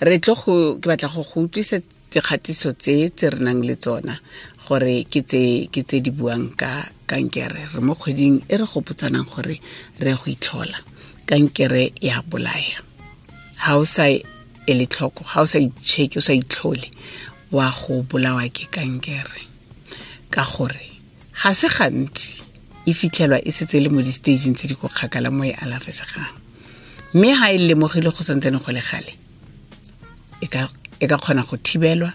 Re tlo go ke batla go go utlwisa dikgatiso tse tse re nang le tsona gore ke tse di buang ka kankere. Re mo kgweding e re gopotsanang gore re go itlhola. Kankere ya bolaya. Ha o sa ele tlhoko, ha o sa itšheke, o sa itlhole, wa go bolawa ke kankere. Ka gore ga se gantsi e fitlhelwa e setse le mo di-stageng tse di ko kgakala mo e alafesegang. Mme ha e lemogile go santsane go le gale, e ka kgona go thibelwa,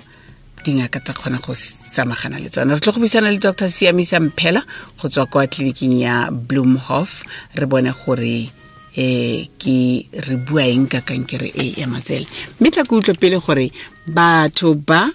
dingaka tsa kgona go samagana le tsona. Re tlo go buisana le Dr. Siamisa Mphela go tswa kwa tleliniking ya Bloemhof, re bone gore ke re bua eng ka kankere e ya matsele. Mme tla ke utlwe pele gore batho ba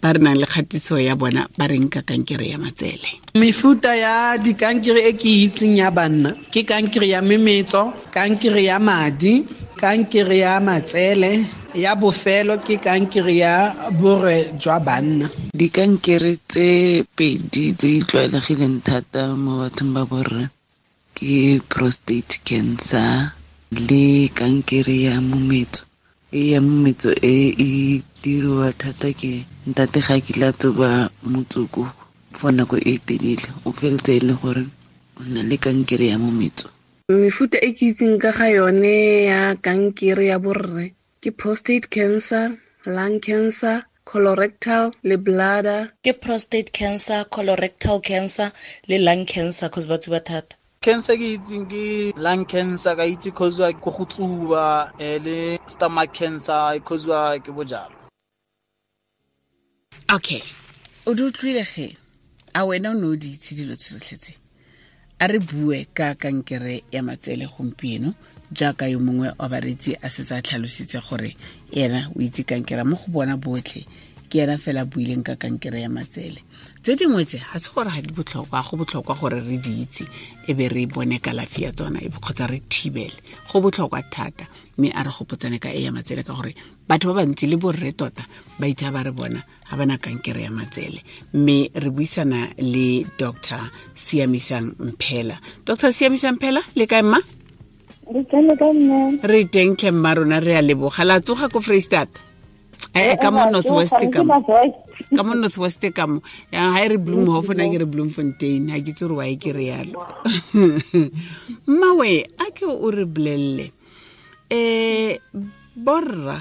re nang le kgatiso ya bona ba reng ka kankere ya matsele. Mefuta ya dikankere e ke itseng ya banna ke kankere ya memetso, kankere ya madi, kankere ya matsele, ya bofelo ke kankere ya borwe jwa banna. Dikankere tse pedi tse di tlwaelegileng thata mo bathong ba borre ke prostate cancer le kankere ya mometso. E ya mometso e e diriwa thata ke ntate ga kile a tsuba motsoko for nako e telele, o feletse e le gore o na le kankere ya mometso. Mefuta e ke itseng ka ga yone ya kankere ya borre ke prostate cancer, lung cancer, colorectal le bladder. Ke prostate cancer, colorectal cancer le lung cancer cause ba tsuba thata. Cancer ke itseng ke lung cancer, ka itse cause ke go tsuba, le stomach cancer cause ke bojalwa. Okay, o di utlwile ge? A wena o ne o di itse dilo tsotlhe tse? A re bue ka kankere ya matsele gompieno, jaaka yo mongwe wa bareetsi a setse a tlhalositse gore ena o itse kankere mo go bona botlhe, ke ena fela a buileng ka kankere ya matsele. Tse dingwe tse ga se gore ga di botlhokwa, go botlhokwa gore re di itse e be re bone kalafi ya tsona e kgotsa re thibele. Go botlhokwa thata, mme a re gopotsane ka e ya matsele ka gore batho ba bantsi le borre tota ba itha ba re bona ga bana kankere ya matsele. Mme re buisana le Dr. Siamisang Mphela. Dr. Siamisang Mphela, le kae mma? Re teng tlhe mma rona, re a leboga. La tsoga ko Freistata? Ka mo North West ka mo. Ka mo North West ka mo. Ya ha re Bloemhof na ke re Bloemfontein, ha ke itse gore why ke re yalo. Mmawe, a ke o re bolelle. Borra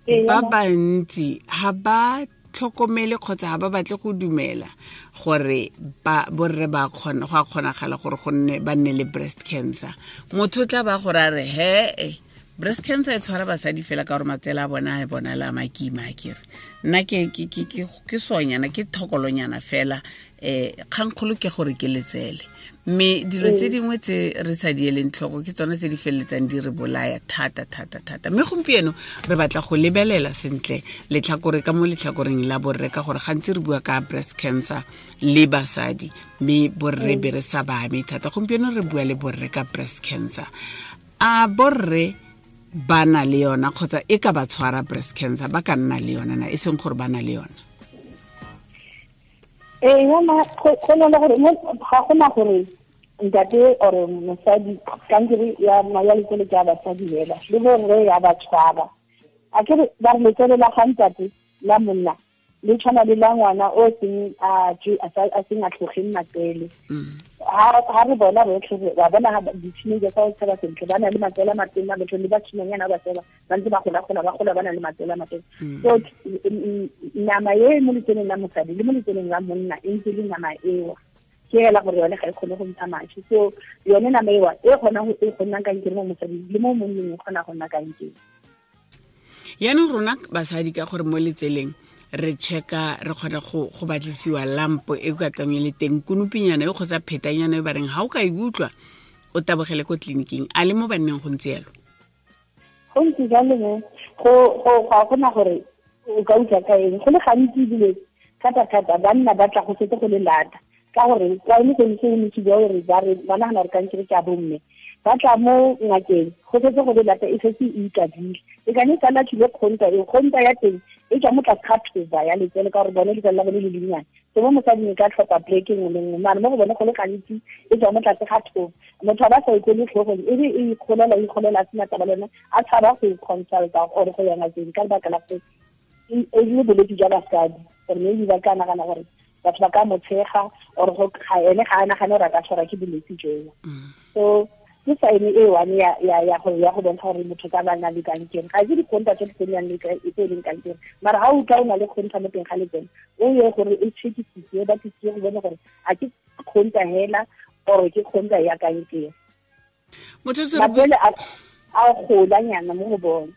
ba bantsi ha ba tlhokomele kgotsa ha ba batle go dumela gore ba borre ba kgona go a kgonagala gore go nne ba nne le breast cancer. Motho o tla ba gore a re he breast cancer e tshwara basadi fela ka gore matsele a bona a bonala a makima, a kere nna ke sonyana, ke thokolonyana fela, kgangkgolo ke gore ke letsele. Mme dilo tse dingwe tse re sa di eleng tlhoko ke tsona tse di feleletsang di re bolaya thata thata thata. Mme gompieno re batla go lebelela sentle letlhakore ka mo letlhakoreng la borre, ka gore gantsi re bua ka breast cancer le basadi, mme borre be re sa ba ame thata. Gompieno re bua le borre ka breast cancer. A borre ba na le yona kgotsa e ka ba tshwara breast cancer, ba ka nna le yona na, e seng gore ba na le yona? Yona go na le gore ga gona gore ntate or mosadi kankere ya letsele ke ya basadi fela, le borre ya ba tshwara. A ke ba re letsele la ga ntate la monna le tshwana le la ngwana o seng a seng a tlhogeng matsele. Ha re bona rotlhe ba bona di-teenager tsa go tshela sentle, ba na le matsele a matona, batho le basimanyana ba tsela ba ntse ba gola-gola, ba gola ba na le matsele a matona. So nama e mo letseleng la mosadi le mo letseleng la monna e ntse le nama eo, ke hela gore yone ga e kgone go ntsha mashi. So yone nama eo e kgona go nna kankere mo mosading le mo monneng e kgona go nna kankere. Yaanong rona basadi ka gore mo letseleng re checka, re kgona go batlisiwa lampo e ka tlang e le teng, konopinyana e kgotsa phetanyana e ba reng ha o ka e utlwa o tabogele ko tleliniking. A le mo banneng go ntse yalo? Go ntse jalo mo go ga gona gore o ka utlwa ka eng. Go le gantsi ebile thata-thata banna ba tla go setse go le lata, ka gore kwa e le go ntse go ntse gore ba re ba nagana gore kankere ke a bomme, ba tla mo ngakeng go setse go le lata, e setse e ikadile. E ka ne sala tshile kgonta, e kgonta ya teng e tswa mo tlase ga thoba ya letsele, ka gore bone letsele la bone le lennyane. So mo mosading e ka tlhopha pleke nngwe le nngwe, mare mo go bone go le gantsi e tswa mo tlase ga thobo. Motho a ba sa ikole tlhogong, e be e ikgolela a sena taba le yone, a tshaba go consulta or go ya ngakeng ka lebaka la gore e le bolwetse jwa basadi, gore maybe ba ka nagana gore batho ba ka mo tshega or go ga ene ga a nagane gore a ka tshwarwa ke bolwetse joo. So ke sign e one ya go bontsha gore motho ka ba na le kankere. Ga ke dikgonta tse di nang le tse e leng kankere, mara ga o utlwa o na le kgonta mo teng ga letseno, o ye gore e checkisitse, ba tlisitse go bone gore a ke kgonta hela or ke kgonta ya kankere. Matswele a golanyana mo go bone.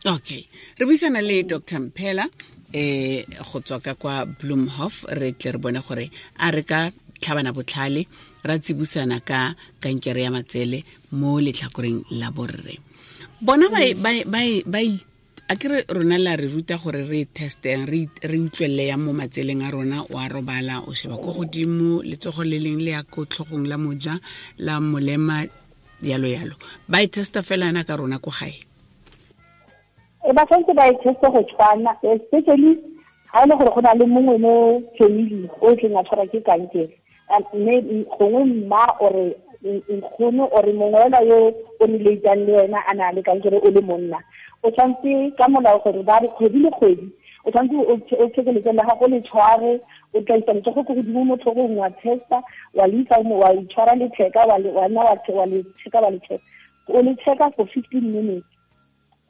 Okay, re buisana le Dr. Mphela go tswa ka kwa Bloemhof. Re tle re bone gore a re ka tlhabana botlhale ra tsibusana ka kankere ya matsele mo letlhakoreng la borre. Bona ba a kere rona la re ruta gore re testeng, re utlwelle ya mo matseleng a rona, wa robala o sheba ko godimo, letsogo le leng le ya ko tlhogong la moja, la molema, yalo yalo. Ba e testa fela yana ka rona ko gae. Ba tshwanetse ba e teste go tshwana, especially ga e le gore go na le mongwe mo family o tleng a tshwarwa ke kankere, mme gongwe mma ore nkgono ore mongwe fela yo o relatang le wena a na le kankere o le monna, o tshwanetse ka molao gore ba re kgwedi le kgwedi o tshwanetse o check letsele la gago le tshware, o tla isa letsogo ko godimo mo tlhogong wa testa, wa le isa wa itshwara letheka, wa nna wa le checka, wa le checka, o le checka for 15 minutes.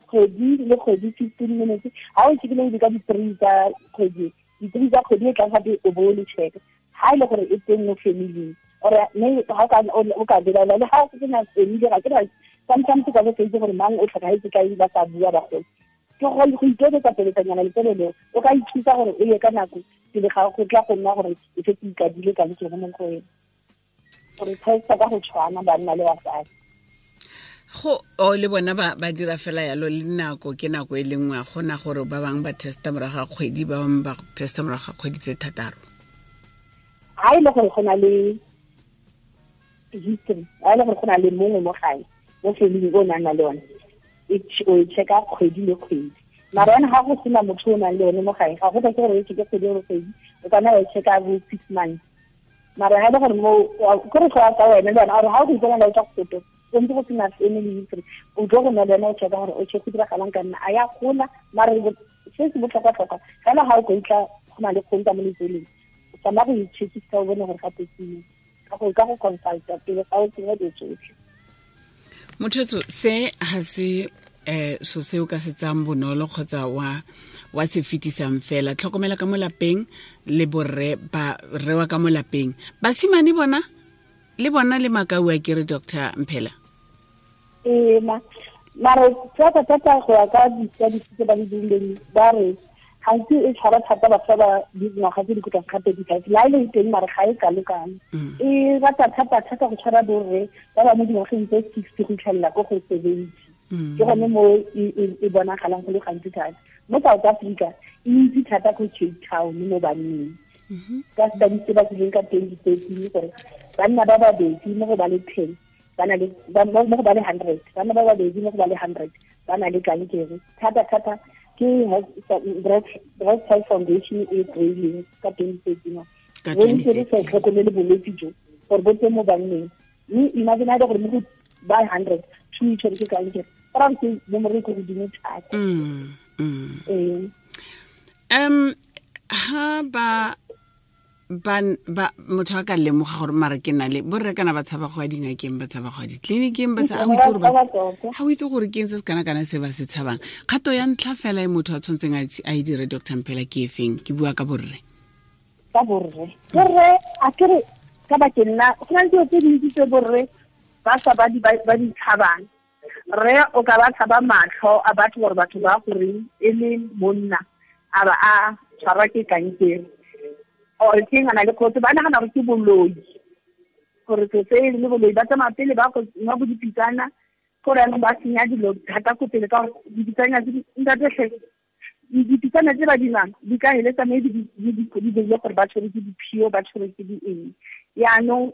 Kgwedi le kgwedi 15 minutes. Ha o checkile di ka di-3 tsa kgwedi, di-3 tsa kgwedi e tlang gape o bo o le checka. Ha e le gore e teng mo family or mme ha o ka belaela le ha o sena family, ga ke re sometimes ka bo itse gore mang o tlhokahetse ka ba sa bua bagolo. Ke go iketsetsa peletsanyana letsele leo, o ka ithusa gore o ye ka nako pele ga go tla go nna gore e setse ikadile kankere mo go wena. Gore testa ka go tshwana banna le basadi. Go o le bona ba dira fela yalo le nako ke nako e le nngwe, gona gore ba bangwe ba testa morago ga kgwedi, ba bangwe ba testa morago ga kgwedi tse 6. Ha e le gore go na le history, ha e le gore go na le mongwe mo gae mo family o nang le one, o e checka kgwedi le kgwedi. Mara yone ga go sena motho o nang le one mo gae, ga go tlhoke gore o checke kgwedi le kgwedi, o ka nna wa e checka bo 6 months. Mara ha e le gore mo kore go ya ka wena le wena, gore ha o go ipona o tswa go foto, o ntse go sena family history, o tlo go nna le wena o checka gore o check go diragalang ka nna a ya gola. Mara se se botlhokwa-tlhokwa fela ga o ka utlwa go na le kgonta mo letseleng, o tsamaya go itshekisa o bone gore gape ke ka go consulta pele ga o tsenya dilo tsotlhe. Mothetso, se ha se so se o ka se tsang bonolo kgotsa wa se fetisang fela. Tlhokomela ka mo lapeng le borre ba rewa ka mo lapeng. Basimane bona le bona le makau a kere Dr. Mphela. Mara thata thata go ya ka di-studies tse ba di dirileng, ba re gantsi e tshwara thata batho ba dingwaga tse di ko tlase ga 35, la e le teng mare ga e kalo-kalo. E rata thata thata go tshwara borre ba ba mo dingwageng tse 60 go itlhelela ko go 70. Ke gone mo e bonagalang go le gantsi thata. Mo South Africa e ntsi thata ko Cape Town mo banneng. Ka studies tse ba dirileng ka 2013 gore banna ba babedi mo go ba le 10 ba na le mo go ba le 100, banna ba babedi mo go ba le 100 ba na le kankere. Thata thata ke Breast Health Foundation e kry-ileng ka 2013. Re ntse re sa tlhokomele bolwetse jo gore bo teng mo banneng, mme imagine ha e le gore mo go ba 100 two e tshwere ke kankere, ba re ke nomoro e ko godimo thata. Ha ba motho a ka lemoga gore mara ke na le borre kana ba tshaba go ya dingakeng, ba tshaba go ya ditleliniking, ba ha o itse gore ke eng se se kana-kana se ba se tshabang. Kgato ya ntlha fela e motho a tshwanetseng a e dire Dr. Mphela ke e feng? Ke bua ka borre. Ka borre. Borre a kere ka bakeng la go na le dilo tse dintsi tse borre ba sa ba di tshabang. Rre o ka ba tshaba matlho a batho gore batho ba goreng e le monna a ba a tshwarwa ke kankere, or ke ngana le kgotsa ba nagana gore ke boloi, gore se se le boloi, ba tsamaya pele ba go nwa bo dipitsana, gore jaanong ba senya dilo thata ko pele ka gore dipitsana tse ntate dipitsana tse ba di nwang di ka heletsa maybe di dirile gore ba tshwere ke diphio, ba tshwere ke di eng. Yaanong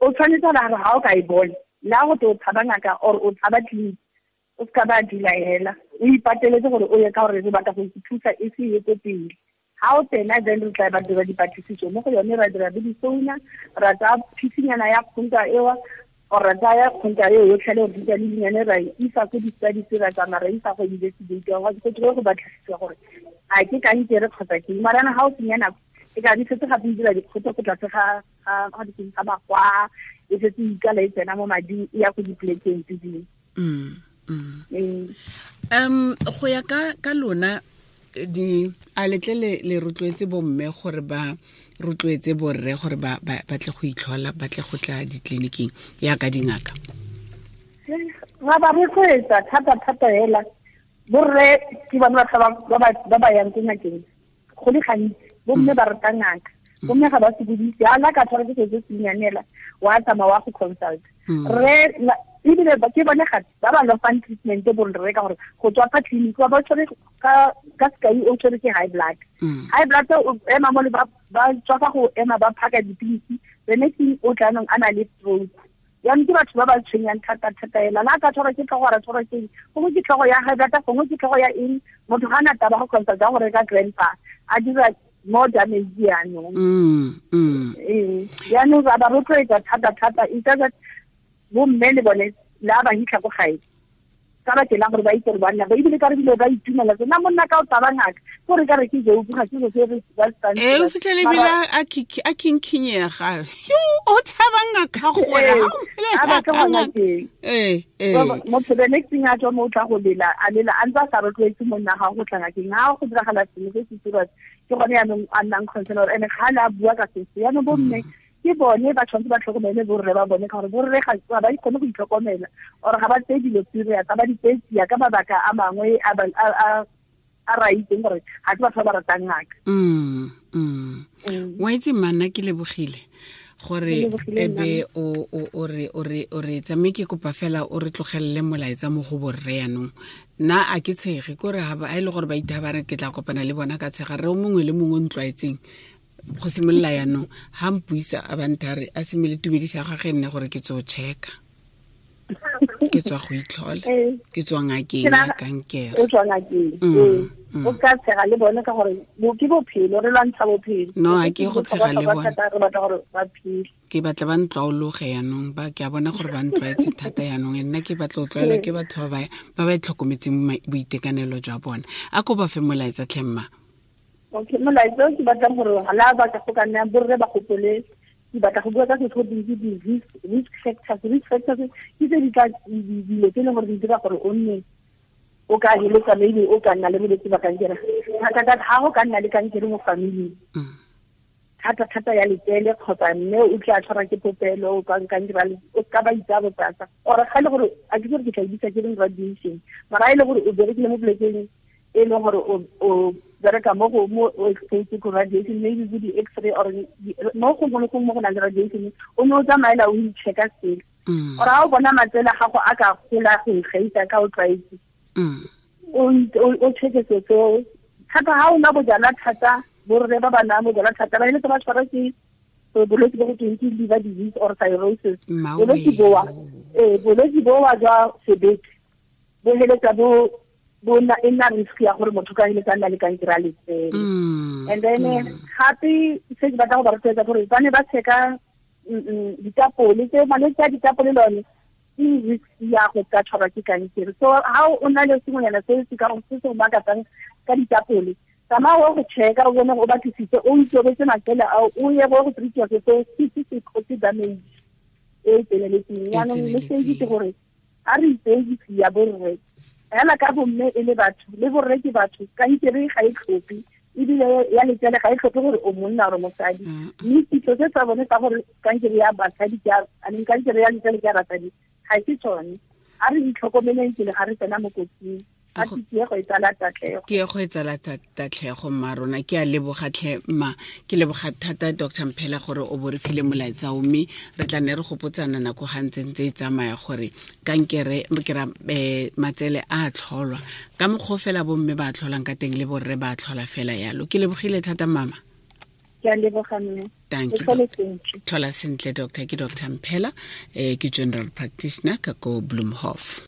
o tshwanetse gore ga o ka e bona la go te o tshaba ngaka or o tshaba tleliniki, o seka ba dula hela, o ipateletse gore o ye ka gore re batla go ithusa e se ye ko pele. Ga o tsena, then re tla ba dira dipatlisiso mo go yone, ra dira le difouna, ra tsaya phisinyana ya kgonta ewa, or ra tsaya kgonta eo yotlhe le gore le dinyane, ra e isa ko di-studies, ra tsamaya ra isa go investigate, go tlile go batlisisiwa gore a ke kankere kgotsa ke. Mara ga o senya nako, e ka di setse gape e dira dikgoto ko tlase ga magwa, e setse e ikala e tsena mo mading, e ya ko dipolekeng tse dingwe. Go ya ka lona, di a letle le rotloetse bomme gore ba rotloetse borre gore ba tle go itlhola, ba tle go tla ditleliniking yaka dingaka? Ra ba rotloetsa thata thata hela. Borre ke bone batho ba ba yang ko ngakeng go le gantsi. Bomme ba rata ngaka, bomme ga ba sokodise. A la ka tshwara ke setse se nyanela, wa tsamaya wa go consult rre. Ebile ke bone gape ba ba lofang treatment borre, ka gore go tswa fa clinic ba tshwere ka sekai, o tshwere ke high blood, high blood o ema mo le ba tswa fa go ema ba phaka dipilisi, the next thing o tla nong a na le stroke. Jaanong ke batho ba ba tshwenyang thata thata ela. La ka tshwarwa ke tlhogo, ra tshwarwa ke gongwe ke tlhogo ya high blood, gongwe ke tlhogo ya eng, motho ga na taba go consult go reka grandpa, a dira more damage jaanong. Jaanong ra ba rotloetsa thata thata. It's just bomme le bone la ba hitlha ko gae ka ba tsela gore ba itse gore banna ba ebile ka re bile ba itumela nna monna ka o taba ngaka gore ka re ke joke, ga ke se re ba e o fitlhele bile a kinkhinyega yo o tshaba ngaka gore ha ba ka gona teng. Motho the next thing a tswa mo o tla go lela, a lela a ntse a sa rotloetse monna ga go tla ngakeng. Ga go diragala sengwe se se serious, ke gone yaanong a nnang concern gore ene ga le a bua ka se. Yaanong bomme ke bone ba tshwanetse ba tlhokomele borre ba bone, ka gore borre ga ba kgone go itlhokomela, or ga ba tseye dilo serious, ga ba di tseye tsia ka mabaka a mangwe a ra itseng gore ga ke batho ba ba ratang ngaka. Wa itse manna, ke lebogile gore ebe o re tsame. Ke kopa fela o re tlogelele molaetsa mo go borre yanong. Nna a ke tshege kore ga e le gore ba itha ba re ke tla kopana le bona ka tshega. Re o mongwe le mongwe o ntlwaetseng go simolola yanong ga mpuisa a banthare a simole tumedisa ga ge nne gore ke tseo checka, ke tswa go itlhola, ke tswa ngakeng ya kankere. O tswa ngakeng, o ka tshega le bone ka gore ke bophelo, re lwantsha bophelo. No, a ke go tshega le bone, re batla gore ba phele. Ke batla ba ntlwaologe yanong, ba ke a bona gore ba ntlwaetse thata yanong. Nna ke batla go tlwaelwa ke batho ba ba itlhokometseng boitekanelo jwa bona. A ko ba fe molaetsa tlhemma. Okay, molaetsa ke batlang gore la ba ka go ka nna borre ba gopole, ke batla go bua ka se go di risk factors. Risk factors ke tse di tla dilo tse e leng gore di dira gore o nne o ka heletsa maybe o ka nna le bolwetse ba kankere. Thata thata ga go ka nna le kankere mo familing, thata thata ya letsele kgotsa mme o tla tshwarwa ke popelo, o ka kankere, o ka ba itsa botsatsa, or ga e le gore a ke gore ke tla bitsa ke reng radiation, mara e le gore o berekile mo polekeng e leng gore o bereka mo go mo o exposed ko radiation, maybe go di-x-ray or mo gongwe le gongwe mo go nang le radiation, o ne o tsamaela o i-checka sele, or ga o bona matsele a gago a ka gola go ikgaisa ka o tlwaetse, o checke seo seo thata. Ga o nwa bojalwa thata, borre ba ba nwang bojalwa thata ba eletsa ba tshwarwa ke bolwetse bo go tweng ke liver disease or cirrhosis. Bolwetse bowa jwa sebete bo heletsa bo bona e nna risk ya gore motho ka heletsa nna le kankere a letsele. And then gape se ke batla go ba rotloetsa gore ba ne ba checka ditapole tse, malwetse a ditapole lone ke risk ya go ka tshwarwa ke kankere. So ha o na le sengwenyana se se ka se se makatsang ka ditapole, tsamaya o go checka, o bone, o batlisise, o itobetse matsele ao, o ye go treatiwa se se se cause damage e tseneletseng. Jaanong message ke gore a re itseye ya borre fela ka bomme e le batho, le borre ke batho. Kankere ga e tlhophe, ebile ya letsele ga e tlhophe gore o monna or mosadi. Mme kitso se tsa bone tsa gore kankere ya basadi ke a kankere ya letsele ke ya basadi ga se tsone. A re itlhokomeleng pele ga re tsena mo kotsing. A tiego e tsala tatlhego. Tiego e tsala tatlhego mma rona. Ke a leboga tlhe mma, ke leboga thata Dr Mphela gore o bo re file molaetsa o, mme re tla ne re gopotsana nako ga ntse ntse e tsamaya gore kankere ke ra matsele a tlholwa ka mokgwa fela bomme ba tlholang ka teng le borre ba tlhola fela yalo. Ke lebogile thata mama. Ke a leboga mme. Thank you. Tlhola sentle doctor. Ke Dr Mphela, ke general practitioner ka ko Bloemhof.